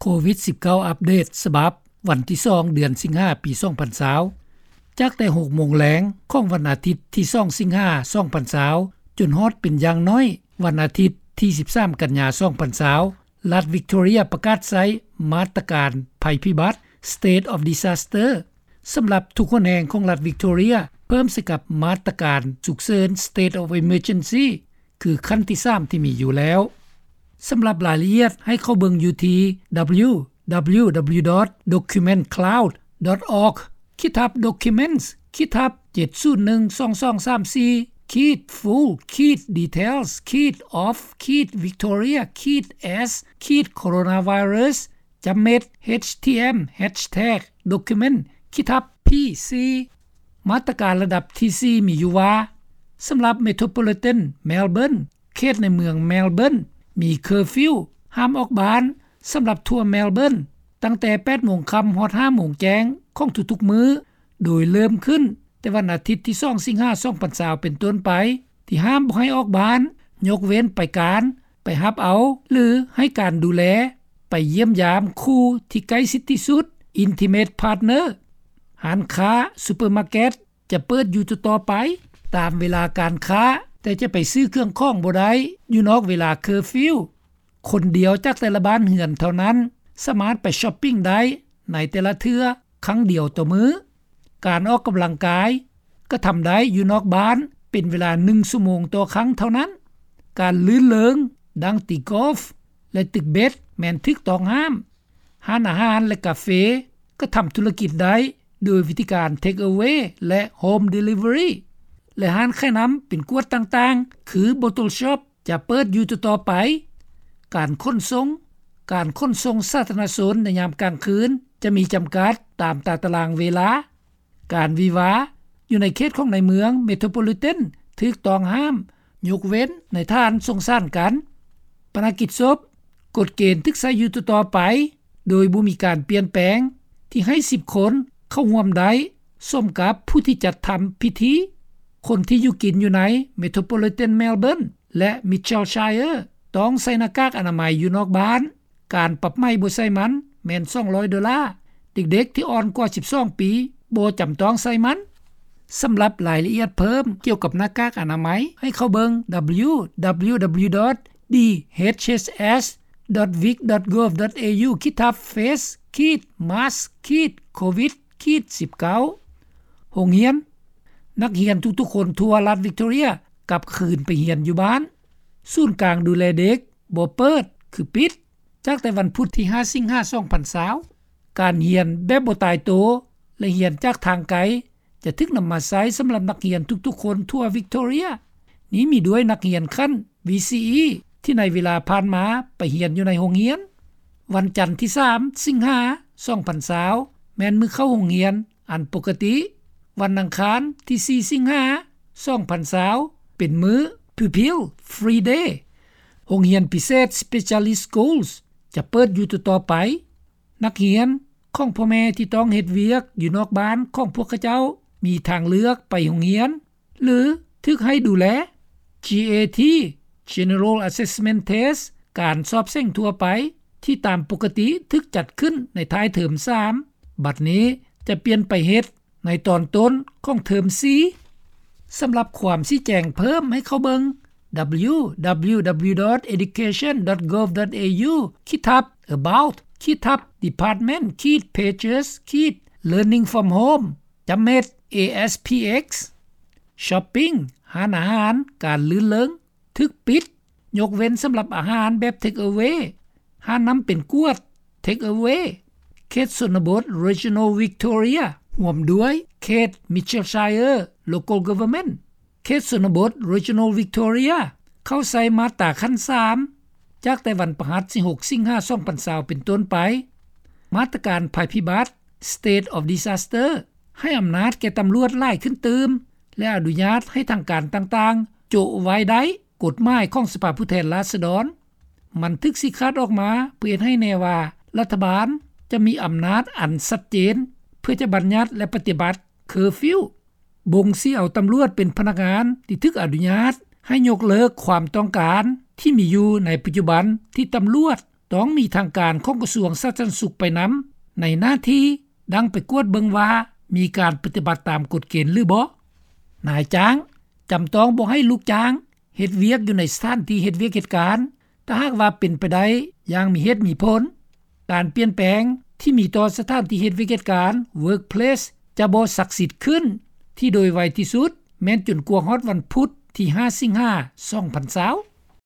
ໂຄວິດສິບເກົ້າ ອັບເດດສະບັບວັນທີສອງ ເດືອນສິງຫາ ປີສອງພັນຊາວ ຈາກແຕ່ຫົກໂມງແລງຂອງວັນອາທິດທີສອງ ສິງຫາ ສອງພັນຊາວ ຈົນຮອດເປັນຢ່າງໜ້ອຍວັນອາທິດທີສິບສາມ ກັນຍາ ສອງພັນຊາວ ລັດວິກຕໍເຣຍປະກາດໃຊ້ມາດຕະການໄພພິບັດ State of Disaster ສຳລັບທຸກຫົນແຫ່ງຂອງລັດວິກຕໍເຣຍ ເພີ່ມໃສ່ກັບມາດຕະການສຸກເສີນ State of Emergency ຄືຂັ້ນທີສາມທີ່ມີຢູ່ແລ້ວ. ສຳລັບລາຍລະອຽດໃຫ້ເຂົ້າເບິ່ງຢູ່ທີ່ www.documentcloud.org/documents/จ็ດສູນໜຶ່ງສອງສອງສາມສີ່ full details of Victoria as coronavirus ຈຳເມັດ htm hashtag document ຂີດທັບ pc. ມາດຕະການລະດັບທີສີ່ມີຢູ່ວ່າ ສຳລັບ Metropolitan Melbourne ເຂດໃນເມືອງ Melbourne ມີ curfew ຫ້າມອອກບ້ານ ສຳລັບທົ່ວ Melbourne ຕັ້ງແຕ່ແປດໂມງຄ່ຳຮອດຫ້າໂມງແຈ້ງຂອງທຸກໆມື້ ໂດຍເລີ່ມຂຶ້ນແຕ່ວັນອາທິດທີສອງ ສິງຫາ ສອງພັນຊາວ ເປັນຕົ້ນໄປ ທີ່ຫ້າມບໍ່ໃຫ້ອອກບ້ານ ຍົກເວັ້ນໄປການ, ໄປຮັບເອົາ ຫຼື ໃຫ້ການດູແລ, ໄປຢ້ຽມຢາມຄູ່ທີ່ໃກ້ຊິດທີ່ສຸດ intimate partner. ຮ້ານຄ້າ, ຊຸບເປີມາເກັດ ຈະເປີດຢູ່ຕໍ່ໆໄປຕາມເວລາການຄ້າ, ແຕ່ຈະໄປຊື້ເຄື່ອງຂອງບໍ່ໄດ້ຢູ່ນອກເວລາ curfew. ຄົນດຽວຈາກແຕ່ລະບ້ານເຮືອນເທົ່ານັ້ນສາມາດໄປ shopping ໄດ້ໃນແຕ່ລະເທື່ອຄັ້ງດຽວຕໍ່ມື້. ການອອກກຳລັງກາຍກະທຳໄດ້ຢູ່ນອກບ້ານເປັນເວລາໜຶ່ງຊົ່ວໂມງຕໍ່ຄັ້ງເທົ່ານັ້ນ. ການລື່ນເລີງ ດັ່ງຕີກອຟ ແລະ ຕຶກເບັດ ແມ່ນຖືກຕ້ອງຫ້າມ. ຮ້ານອາຫານ ແລະ ກາເຟ ກະທຳທຸລະກິດໄດ້ໂດຍວິທີການ take away ແລະ home delivery ແລະ ຮ້ານຂາຍນ້ຳເປັນກວດຕ່າງໆ ຄື bottle shop ຈະເປີດຢູ່ຕໍ່ໆໄປ. ການຂົນສົ່ງ, ການຂົນສົ່ງສາທາລະນະຊົນໃນຍາມກາງຄືນຈະມີຈຳກັດຕາມຕາຕະລາງເວລາ. ການວິວາຢູ່ໃນເຂດຂອງໃນເມືອງ Metropolitan ຖືກຕ້ອງຫ້າມ ຍົກເວັ້ນໃນຖານສົງສານກັນ. ປະນະກິດສົບ, ກົດເກນຖືກໃຊ້ຢູ່ຕໍ່ໆໄປ ໂດຍບໍ່ມີການປ່ຽນແປງ ທີ່ໃຫ້ສິບຄົນເຂົ້າຮ່ວມໄດ້ ສົມກັບຜູ້ທີ່ຈັດທຳພິທີ. ຄົນທີ່ຢູ່ກິນຢູ່ໃນ Metropolitan Melbourne ແລະ Mitchellshire ຕ້ອງໃສ່ໜ້າກາກອະນາໄມຢູ່ນອກບ້ານ. ການປັບໃໝບໍ່ໃສ່ມັນແມ່ນສອງຮ້ອຍໂດລາ. ເດັກໆທີ່ອ່ອນກວ່າສິບສອງປີບໍ່ຈຳຕ້ອງໃສ່ມັນ. ສຳລັບລາຍລະອຽດເພີ່ມກ່ຽວກັບໜ້າກາກອະນາໄມ ໃຫ້ເຂົ້າເບິ່ງ www.dhss.vic.gov.au/face/mask/covid-19. ໂຮງຮຽນ, ນັກຮຽນທຸກໆຄົນທົ່ວລັດວິກຕໍເຣຍກັບຄືນໄປຮຽນຢູ່ບ້ານ. ສູນກາງດູແລເດັກບໍ່ເປີດ ຄືປິດ ຈາກແຕ່ວັນພຸດທີຫ້າ ສິງຫາ ສອງພັນຊາວ. ການຮຽນແບບບໍ່ຕາຍໂຕ ແລະ ຮຽນຈາກທາງໄກ ຈະຖືກນຳມາໃຊ້ສຳລັບນັກຮຽນທຸກໆຄົນທົ່ວວິກຕໍເຣຍ. ນີ້ມີດ້ວຍນັກຮຽນຂັ້ນ VCE ທີ່ໃນເວລາຜ່ານມາໄປຮຽນຢູ່ໃນໂຮງຮຽນ. ວັນຈັນທີສາມ ສິງຫາ ສອງພັນຊາວ ແມ່ນມື້ເຂົ້າໂຮງຮຽນອັນປົກກະຕິ. ວັນອັງຄານທີສີ່ ສິງຫາ ສອງພັນຊາວ ເປັນມື້ Pupil Free Day. ໂຮງຮຽນພິເສດ Specialist Schools ຈະເປີດຢູ່ຕໍ່ໆໄປ. ນັກຮຽນຂອງພໍ່ແມ່ທີ່ຕ້ອງເຮັດວຽກຢູ່ນອກບ້ານຂອງພວກເຂົາເຈົ້າ ມີທາງເລືອກໄປໂຮງຮຽນ ຫຼື ຖືກໃຫ້ດູແລ. GAT General Assessment Test ການສອບເສັງທົ່ວໄປ ທີ່ຕາມປົກກະຕິຖືກຈັດຂຶ້ນໃນທ້າຍເທີມສາມ ບັດນີ້ຈະປ່ຽນໄປເຮັດໃນຕອນຕົ້ນຂອງເທີມສີ່. ສຳລັບຄວາມຊີ້ແຈງເພີ່ມໃຫ້ເຂົ້າເບິ່ງ www.education.gov.au/education/department/pages/learning from home/ASPX. Shopping, ຮ້ານອາຫານ, ການລື່ນເລີງ ຖືກປິດ ຍົກເວັ້ນສຳລັບອາຫານແບບ take away, ຮ້ານນ້ຳເປັນກວດ take away. ເຂດຊົນນະບົດ Regional Victoria ຮ່ວມດ້ວຍເຂດ Mitchellshire Local Government. ເຂດຊົນນະບົດ Regional Victoria ເຂົ້າໃຊ້ມາດຕາຂັ້ນສາມ ຈາກແຕ່ວັນພະຫັດທີຫົກ ສິງຫາ ສອງພັນຊາວ ເປັນຕົ້ນໄປ. ມາດຕະການໄພພິບັດ State of Disaster ໃຫ້ອຳນາດແກ່ຕຳຫຼວດຫຼາຍຂຶ້ນຕື່ມ ແລະ ອະນຸຍາດໃຫ້ທາງການຕ່າງໆ ໂຈະໄວ້ໄດ້ກົດໝາຍຂອງສະພາຜູ້ແທນລາຊະດອນ. ມັນຖືກຊີ້ຂາດອອກມາເພື່ອເຮັດໃຫ້ແນ່ວ່າ ລັດຖະບານຈະມີອຳນາດອັນຊັດເຈນ ເພື່ອຈະບັນຍັດ ແລະ ປະຕິບັດ curfew. ບົ່ງຊີ້ເອົາຕຳຫຼວດເປັນພະນັກງານທີ່ຖືກອະນຸຍາດໃຫ້ຍົກເລີກຄວາມຕ້ອງການທີ່ມີຢູ່ໃນປັດຈຸບັນທີ່ຕຳຫຼວດ ຕ້ອງມີທາງການຂອງກະຊວງສາທາລະນະສຸກໄປນຳ ໃນໜ້າທີ່ດັ່ງໄປກວດເບິ່ງວ່າ ມີການປະຕິບັດຕາມກົດເກນຫຼືບໍ່. ນາຍຈ້າງຈຳຕ້ອງບໍ່ໃຫ້ລູກຈ້າງເຮັດວຽກຢູ່ໃນສະຖານທີ່ເຮັດວຽກເຮັດການ ຖ້າຫາກວ່າເປັນໄປໄດ້ຢ່າງມີເຫດມີຜົນ. ການປ່ຽນແປງທີ່ມີຕໍ່ສະຖານທີ່ເຮັດວຽກເຮັດການ Workplace ຈະບໍ່ສັກສິດຂຶ້ນທີ່ໂດຍໄວທີ່ສຸດ ແມ່ນຈົນກວ່າຮອດວັນພຸດທີຫ້າ ສິງຫາ ສອງພັນຊາວ.